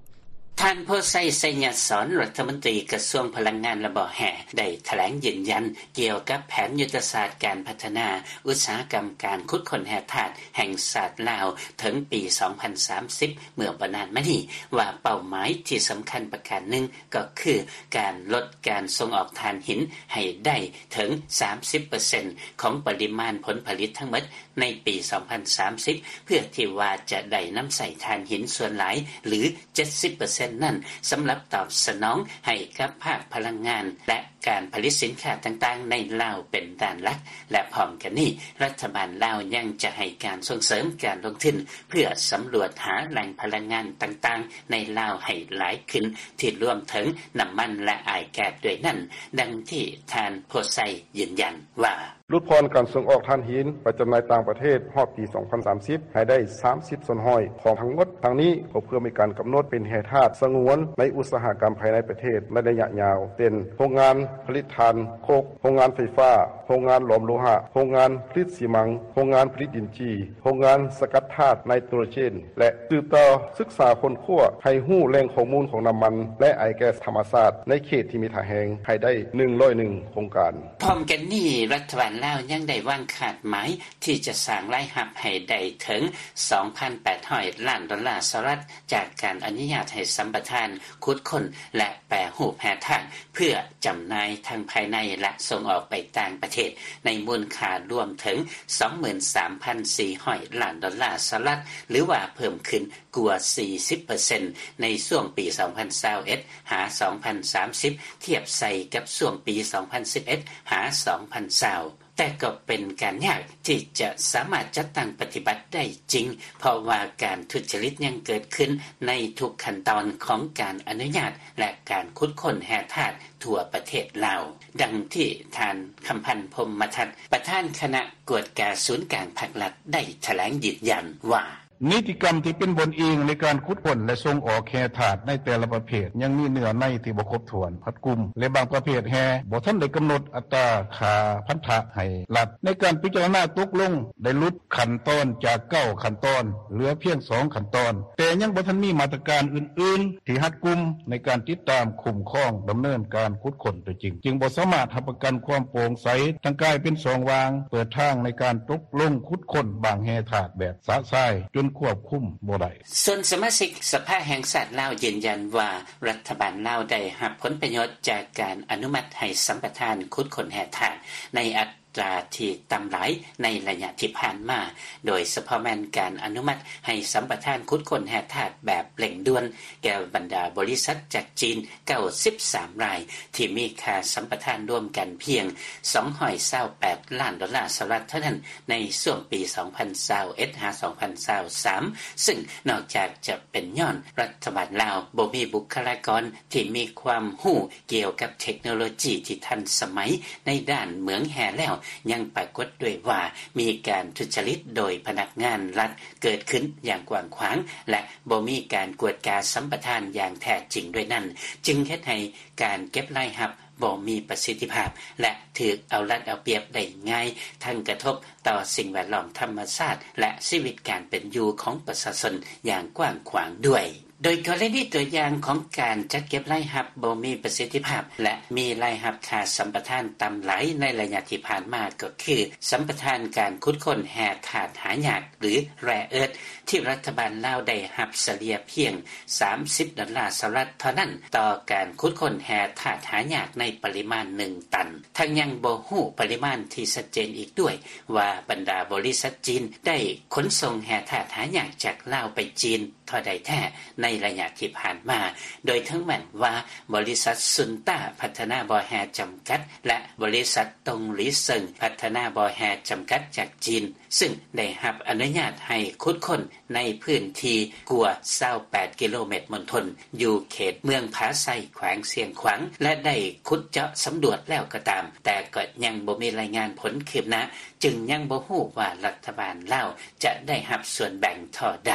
ທ່ານ ໂພໄຊ ໄຊຍະສອນ ລັດຖະມົນຕີກະຊວງພະລັງງານ ແລະ ບໍ່ແຮ່ ໄດ້ຖະແຫຼງຢືນຢັນກ່ຽວກັບແຜນຍຸດທະສາດການພັດທະນາອຸດສາຫະກຳການຂຸດຄົ້ນແຮ່ທາດແຫ່ງຊາດລາວເຖິງປີສອງພັນສາມສິບ ເມື່ອບໍ່ນານມານີ້ ວ່າເປົ້າໝາຍທີ່ສຳຄັນປະການໜຶ່ງ ກໍຄືການລົດການສົ່ງອອກຖ່ານຫີນໃຫ້ໄດ້ເຖິງສາມສິບເປີເຊັນຂອງປະລິມານຜົນຜະລິດທັງໝົດ ໃນປີສອງພັນສາມສິບ ເພື່ອທີ່ວ່າຈະໄດ້ນຳໃຊ້ຖ່ານຫີນສ່ວນຫຼາຍ ຫຼື ເຈັດສິບເປີເຊັນນັ້ນ ສຳລັບຕອບສະໜອງໃຫ້ກັບພາກພະລັງງານ ແລະ ການຜະລິດສິນຄ້າຕ່າງໆໃນລາວເປັນດ້ານຫຼັກ ແລະ ພ້ອມກັນນີ້ ລັດຖະບານລາວຍັງຈະໃຫ້ການສົ່ງເສີມການລົງທຶນ ເພື່ອສຳຫຼວດຫາແຫຼ່ງພະລັງງານຕ່າງໆໃນລາວໃຫ້ຫຼາຍຂຶ້ນ ທີ່ລວມເຖິງນ້ຳມັນ ແລະ ອ້າຍແກັສດ້ວຍນັ້ນ, ດັ່ງທີ່ທ່ານ ໂພໄຊ ຢືນຢັນວ່າ ຫຼຸດຜ່ອນການສົ່ງອອກຖ່ານຫີນໄປຈຳໜ່າຍຕ່າງປະເທດຮອດປີສອງພັນສາມສິບ ໃຫ້ໄດ້ສາມສິບສ່ວນຮ້ອຍຂອງທັງໝົດ. ທັງນີ້ກໍເພື່ອມີການກຳນົດເປັນແຮ່ທາດສະຫງວນໃນອຸດສາຫະກຳພາຍໃນປະເທດໃນໄລຍະຍາວ ເຊັ່ນ ໂຮງງານຜະລິດຖ່ານໂຄກ, ໂຮງງານໄຟຟ້າ, ໂຮງງານຫຼອມໂລຫະ, ໂຮງງານຜະລິດຊີມັງ, ໂຮງງານຜະລິດດິນຈີ່, ໂຮງງານສະກັດທາດໄນໂຕຣເຈນ ແລະ ສືບຕໍ່ສຶກສາຄົ້ນຄວ້າໃຫ້ຮູ້ແຫຼ່ງຂໍ້ມູນຂອງນ້ຳມັນ ແລະ ອ້າຍແກັສທຳມະຊາດໃນເຂດທີ່ມີທ່າແຮງໃຫ້ໄດ້ໜຶ່ງຮ້ອຍເອັດໂຄງການ. ພ້ອມກັນນີ້ ລັດຖະບານລາວຍັງໄດ້ວາງຄາດໝາຍທີ່ຈະສ້າງລາຍຮັບໃຫ້ໄດ້ເຖິງສອງພັນແປດຮ້ອຍລ້ານດອນລາສະຫະລັດ ຈາກການອະນຸຍາດໃຫ້ສຳປະທານຂຸດຄົ້ນ ແລະ ແປຮູບແຮ່ທາດ ເພື່ອຈຳໜ່າຍທັງພາຍໃນ ແລະ ສົ່ງອອກໄປຕ່າງປະເທດ ໃນມູນຄ່າລວມເຖິງສອງໝື່ນສາມພັນສີ່ຮ້ອຍລ້ານດອນລາສະຫະລັດ ຫຼືວ່າເພີ່ມຂຶ້ນກວ່າສີ່ສິບເປີເຊັນ ໃນຊ່ວງປີສອງພັນຊາວເອັດ ຫາ ສອງພັນສາມສິບ ທຽບໃສ່ກັບຊ່ວງປີສອງພັນສິບເອັດ ຫາ ສອງພັນຊາວ. ແຕ່ກໍເປັນການຍາກທີ່ຈະສາມາດຈັດຕັ້ງປະຕິບັດໄດ້ຈິງ ເພາະວ່າການທຸດຈະລິດຍັງເກີດຂຶ້ນໃນທຸກຂັ້ນຕອນຂອງການອະນຸຍາດ ແລະ ການຂຸດຄົ້ນແຮ່ທາດທົ່ວປະເທດລາວ, ດັ່ງທີ່ທ່ານ ຄຳພັນ ພົມມະທັດ ປະທານຄະນະກວດກາສູນກາງພັກລັດ ໄດ້ຖະແຫຼງຢືນຢັນວ່າ ນິຕິກຳທີ່ເປັນບ່ອນອີງໃນການຂຸດຄົ້ນ ແລະ ສົ່ງອອກແຮ່ທາດໃນແຕ່ລະປະເພດ ຍັງມີເນື້ອໃນທີ່ບໍ່ຄົບຖ້ວນ, ຮັດກຸມ ແລະ ບາງປະເພດແຮ່ບໍ່ທັນໄດ້ກຳນົດອັດຕາຄ່າພັນທະໃຫ້ລັດ. ໃນການພິຈາລະນາຕົກລົງ ໄດ້ຫຼຸດຂັ້ນຕອນຈາກເກົ້າຂັ້ນຕອນ ເຫຼືອພຽງສອງຂັ້ນຕອນ, ແຕ່ຍັງບໍ່ທັນມີມາດຕະການອື່ນໆທີ່ຮັດກຸມໃນການຕິດຕາມ, ຄຸ້ມຄອງ, ດຳເນີນການຂຸດຄົ້ນຕົວຈິງ, ຈຶ່ງບໍ່ສາມາດຮັບປະກັນຄວາມໂປ່ງໃສ, ທັງກາຍເປັນຊ່ອງວ່າງເປີດທາງໃນການຕົກລົງຂຸດຄົ້ນບາງແຮ່ທາດແບບຊະຊາຍ ຈົນຄວບຄຸມບໍ່ໄດ້. ສ່ວນສະມາຊິກສະພາແຫ່ງຊາດລາວຢືນຢັນວ່າ ລັດຖະບານລາວໄດ້ຮັບຜົນປະໂຫຍດຈາກການອະນຸມັດໃຫ້ສຳປະທານຂຸດຄົ້ນແຮ່ທາດໃນອັດຕາທີ່ຕ່ຳຫຼາຍໃນໄລຍະທີ່ຜ່ານມາ, ໂດຍສະເພາະແມ່ນການອະນຸມັດໃຫ້ສຳປະທານຂຸດຄົ້ນແຮ່ທາດແບບເລັ່ງດ່ວນແກ່ບັນດາບໍລິສັດຈາກຈີນ ເກົ້າສິບສາມລາຍ ທີ່ມີຄ່າສຳປະທານລວມກັນພຽງສອງຮ້ອຍຊາວແປດລ້ານດອນລາສະຫະລັດເທົ່ານັ້ນ ໃນຊ່ວງປີສອງພັນຊາວເອັດ ຫາ ສອງພັນຊາວສາມ ຊຶ່ງນອກຈາກຈະເປັນຍ້ອນລັດຖະບານລາວບໍ່ມີບຸກຄະລາກອນທີ່ມີຄວາມຮູ້ກ່ຽວກັບເທັກໂນໂລຈີທີ່ທັນສະໄໝໃນດ້ານເໝືອງແຮ່ແລ້ວ, ຍັງປາກົດດ້ວຍວ່າມີການທຸດຈະລິດໂດຍພະນັກງານລັດເກີດຂຶ້ນຢ່າງກວ້າງຂວາງ ແລະ ບໍ່ມີການກວດກາສຳປະທານຢ່າງແທ້ຈິງດ້ວຍນັ້ນ, ຈຶ່ງເຮັດໃຫ້ ການເກັບລາຍຮັບບໍ່ມີປະສິດທິພາບ ແລະ ຖືກເອົາລັດເອົາປຽບໄດ້ງ່າຍ, ທັງກະທົບຕໍ່ສິ່ງແວດລ້ອມທຳມະຊາດ ແລະ ຊີວິດການເປັນຢູ່ຂອງປະຊາຊົນຢ່າງກວ້າງຂວາງດ້ວຍ. ໂດຍກໍລະນີຕົວຢ່າງຂອງການຈັດເກັບລາຍຮັບບໍ່ມີປະສິດທິພາບ ແລະ ມີລາຍຮັບຄ່າສຳປະທານຕ່ຳຫຼາຍໃນໄລຍະທີ່ຜ່ານມາ ກໍຄືສຳປະທານການຂຸດຄົ້ນແຮ່ທາດຫາຍາກ ຫຼື rare earth ທີ່ລັດຖະບານລາວໄດ້ຮັບສະເລ່ຍພຽງສາມສິບດອນລາສະຫະລັດເທົ່ານັ້ນ ຕໍ່ການຂຸດຄົ້ນແຮ່ທາດຫາຍາກໃນປະລິມານໜຶ່ງຕັນ. ທັງຍັງບໍ່ຮູ້ປະລິມານທີ່ຊັດເຈນອີກດ້ວຍວ່າ ບັນດາບໍລິສັດຈີນໄດ້ຂົນສົ່ງແຮ່ທາດຫາຍາກຈາກລາວໄປຈີນ ເທົ່າໃດແທ້ໃນໄລຍະທີ່ຜ່ານມາ, ໂດຍເຖິງແມ່ນວ່າບໍລິສັດຊຸນຕ້າພັດທະນາບໍ່ແຮ່ຈຳກັດ ແລະ ບໍລິສັດຕົງຫຼີເຊິ່ງພັດທະນາບໍ່ແຮ່ຈຳກັດຈາກຈີນ ຊຶ່ງໄດ້ຮັບອະນຸຍາດໃຫ້ຂຸດຄົ້ນໃນພື້ນທີ່ກວ່າຊາວແປດກິໂລແມັດມົນທົນ ຢູ່ເຂດເມືອງຜາໄຊ ແຂວງຊຽງຂວາງ ແລະ ໄດ້ຂຸດເຈາະສຳຫຼວດແລ້ວກໍຕາມ, ແຕ່ກໍຍັງບໍ່ມີລາຍງານຜົນຄືບໜ້າ, ຈຶ່ງຍັງບໍ່ຮູ້ວ່າລັດຖະບານລາວຈະໄດ້ຮັບສ່ວນແບ່ງເທົ່າໃດ.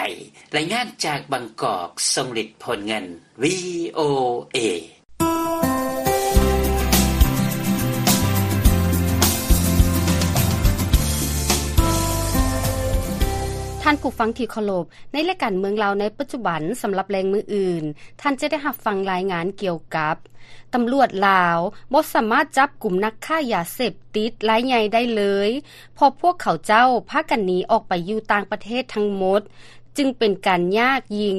ລາຍງານຈາກບາງກອກ, ຊົງລິດ ໂພນເງິນ ວີໂອເອ. ທ່ານຜູ້ຟັງທີ່ເຄົາລົບ, ໃນລາຍການເມືອງລາວໃນປັດຈຸບັນ ສຳລັບແລງມື້ອື່ນ, ທ່ານຈະໄດ້ຮັບຟັງລາຍງານກ່ຽວກັບ ຕຳຫຼວດລາວບໍ່ສາມາດຈັບກຸມນັກຄ້າຢາເສບຕິດລາຍໃຫຍ່ໄດ້ເລີຍ, ເພາະພວກເຂົາເຈົ້າພາກັນໜີອອກໄປຢູ່ຕ່າງປະເທດທັງໝົດ, ຈຶ່ງເປັນການຍາກຍິ່ງ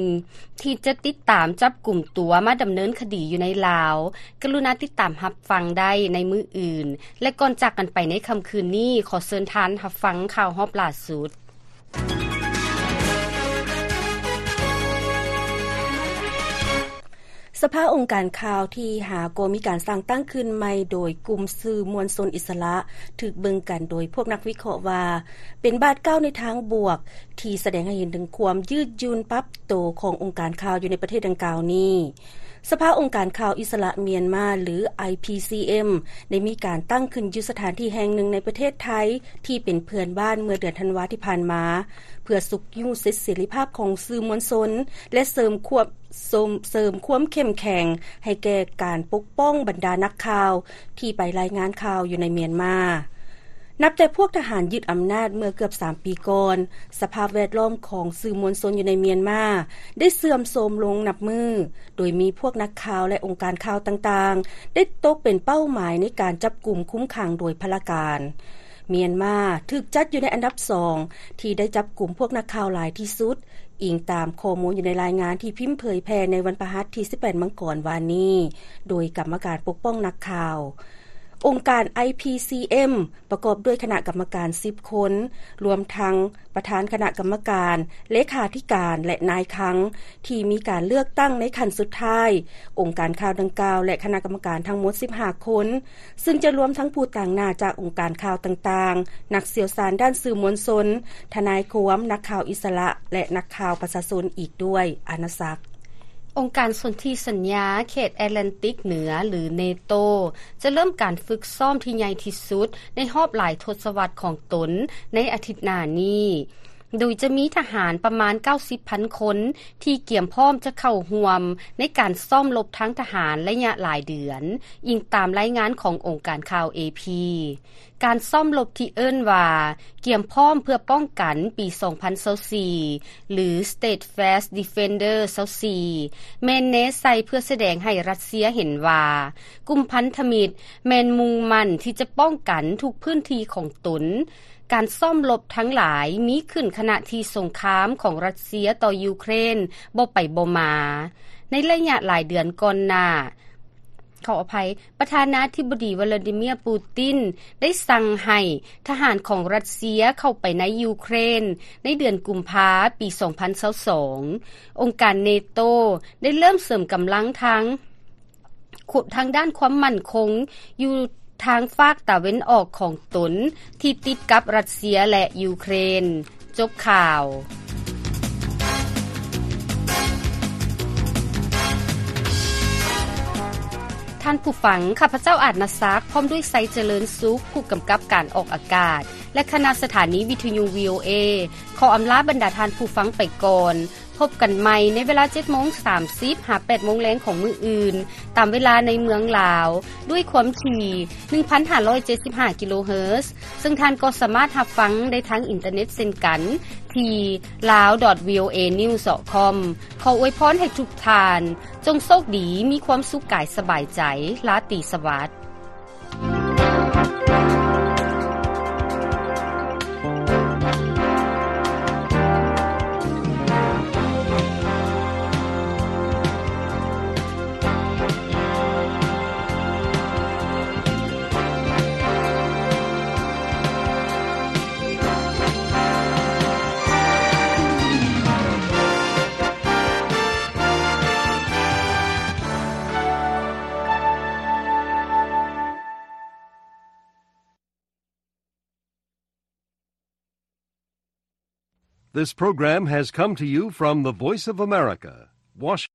ທີ່ຈະຕິດຕາມຈັບກຸມຕົວມາດຳເນີນຄະດີຢູ່ໃນລາວ. ກະລຸນາຕິດຕາມຮັບຟັງໄດ້ໃນມື້ອື່ນ. ແລະ ກ່ອນຈາກກັນໄປໃນຄ່ຳຄືນນີ້, ຂໍເຊີນທ່ານຮັບຟັງຂ່າວຮອບລ່າສຸດ. ສະພາອົງການຂ່າວທີຫ້າ ກໍມີການສ້າງຕັ້ງຂຶ້ນໃໝ່ໂດຍກຸ່ມສື່ມວນຊົນອິດສະຫຼະ, ຖືກເບິ່ງກັນໂດຍພວກນັກວິເຄາະວ່າ ເປັນບາດກ້າວໃນທາງບວກ ທີ່ສະແດງໃຫ້ເຫັນເຖິງຄວາມຍືດຫຍຸ່ນປັບໂຕຂອງອົງການຂ່າວຢູ່ໃນປະເທດດັ່ງກ່າວນີ້. ສະພາອົງການຂ່າວອິດສະຫຼະມຽນມາ ຫຼື ໄອພີຊີເອັມ ໄດ້ມີການຕັ້ງຂຶ້ນຢູ່ສະຖານທີ່ແຫ່ງໜຶ່ງໃນປະເທດໄທ ທີ່ເປັນເພື່ອນບ້ານເມື່ອເດືອນທັນວາທີ່ຜ່ານມາ ເພື່ອຊຸກຍູ້ສິດເສລີພາບຂອງສື່ມວນຊົນ ແລະ ເສີມຄວາມ ເສີມ ເສີມຄວາມເຂັ້ມແຂງໃຫ້ແກ່ການປົກປ້ອງບັນດານັກຂ່າວທີ່ໄປລາຍງານຂ່າວຢູ່ໃນມຽນມາ. ນັບແຕ່ພວກທະຫານຍຶດອຳນາດເມື່ອເກືອບສາມປີກ່ອນ, ສະພາບແວດລ້ອມຂອງສື່ມວນຊົນຢູ່ໃນມຽນມາໄດ້ເສື່ອມໂຊມລົງນັບມື້, ໂດຍມີພວກນັກຂ່າວ ແລະ ອົງການຂ່າວຕ່າງໆ ໄດ້ຕົກເປັນເປົ້າໝາຍໃນການຈັບກຸມຄຸມຂັງໂດຍພະລາການ. ມຽນມາຖືກຈັດຢູ່ໃນອັນດັບສອງ ທີ່ໄດ້ຈັບກຸມພວກນັກຂ່າວຫຼາຍທີ່ສຸດ, ອີງຕາມຂໍ້ມູນຢູ່ໃນລາຍງານທີ່ພິມເຜີຍແຜ່ໃນວັນພະຫັດທີສິບແປດມັງກອນວານນີ້ ໂດຍກຳມະການປົກປ້ອງນັກຂ່າວ. ອົງການ ໄອພີຊີເອັມ ປະກອບດ້ວຍຄະນະກຳມະການສິບຄົນ, ລວມທັງປະທານຄະນະກຳມະການ, ເລຂາທິການ ແລະ ນາຍຄັງ ທີ່ມີການເລືອກຕັ້ງໃນຂັ້ນສຸດທ້າຍ. ອົງການຂ່າວດັ່ງກ່າວ ແລະ ຄະນະກຳມະການທັງໝົດສິບຫ້າຄົນ, ຊຶ່ງຈະລວມທັງຜູ້ຕາງໜ້າຈາກອົງການຂ່າວຕ່າງໆ, ນັກຊ່ຽວຊານດ້ານສື່ມວນຊົນ, ທະນາຍຄວາມ, ນັກຂ່າວອິດສະຫຼະ ແລະ ນັກຂ່າວປະຊາຊົນອີກດ້ວຍ. ອານາສັກ. ອົງການສົນທິສັນຍາເຂດແອດແລນຕິກເໜືອ ຫຼື ເນໂຕ ຈະເລີ່ມການຝຶກຊ້ອມທີ່ໃຫຍ່ທີ່ສຸດໃນຮອບຫຼາຍທົດສະວັດຂອງຕົນໃນອາທິດໜ້ານີ້, ໂດຍຈະມີທະຫານປະມານເກົ້າສິບພັນຄົນທີ່ກຽມພ້ອມຈະເຂົ້າຮ່ວມໃນການຊ້ອມລົບທາງທະຫານໄລຍະຫຼາຍເດືອນ, ອີງຕາມລາຍງານຂອງອົງການຂ່າວ ເອພີ. ການຊ້ອມລົບທີ່ເອີ້ນວ່າ ກຽມພ້ອມເພື່ອປ້ອງກັນປີສອງພັນຊາວສີ່ ຫຼື Steadfast Defender ຊາວສີ່ ແມ່ນແນໃສ່ເພື່ອສະແດງໃຫ້ຣັດເຊຍເຫັນວ່າ ກຸ່ມພັນທະມິດແມ່ນມຸ່ງໝັ້ນທີ່ຈະປ້ອງກັນທຸກພື້ນທີ່ຂອງຕົນ. ການຊ້ອມລົບທັງຫຼາຍມີຂຶ້ນຂະນະທີ່ສົງຄາມຂອງຣັດເຊຍຕໍ່ຢູເຄຣນບໍ່ໄປບໍ່ມາ ໃນໄລຍະຫຼາຍເດືອນກ່ອນໜ້າ. ຂໍອະໄພ, ປະທານາທິບໍດີ ວລາດີເມຍ ປູຕິນ ໄດ້ສັ່ງໃຫ້ທະຫານຂອງຣັດເຊຍເຂົ້າໄປໃນຢູເຄຣນໃນເດືອນກຸມພາປີສອງພັນຊາວສອງ. ອົງການເນໂຕໄດ້ເລີ່ມເສີມກຳລັງທາງ ທາງດ້ານຄວາມໝັ້ນຄົງຢູ່ທາງຟາກຕາເວັນອອກຂອງຕົນທີ່ຕິດກັບຣັດເຊຍ ແລະ ຢູເຄຣນ. ຈົບຂ່າວ. ທ່ານຜູ້ຟັງ, ຂ້າພະເຈົ້າ ອາດນາສັກ ພ້ອມດ້ວຍ ໄຊຈະເລີນສຸກ ຜູ້ກຳກັບການອອກອາກາດ ແລະ ຄະນະສະຖານີວິທຍຸ ວີໂອເອ ຂໍອຳລາບັນດາທ່ານຜູ້ຟັງໄປກ່ອນ. ພ ພົບກັນໃໝ່ໃນເວລາເຈັດໂມງສາມສິບຫາແປດໂມງແລງຂອງມື້ອື່ນ ຕາມເວລາໃນເມືອງລາວ ດ້ວຍຄວາມຖີ່ໜຶ່ງພັນຫ້າຮ້ອຍເຈັດສິບຫ້າກິໂລເຮີດ ເຊິ່ງທ່ານກໍສາມາດຮັບຟັງໄດ້ທາງອິນເຕີເນັດເຊັ່ນກັນ ທີ່ ลาว ດອດ ວີ ໂອ ເອ ນິວສ໌ ດອດ ຄອມ. ຂໍອວຍພອນໃຫ້ທຸກທ່ານ ຈົ່ງໂຊກດີ ມີຄວາມສຸກກາຍສະບາຍໃຈ, ລາຕີສະຫວັດ. This program has come to you from the Voice of America, Washington.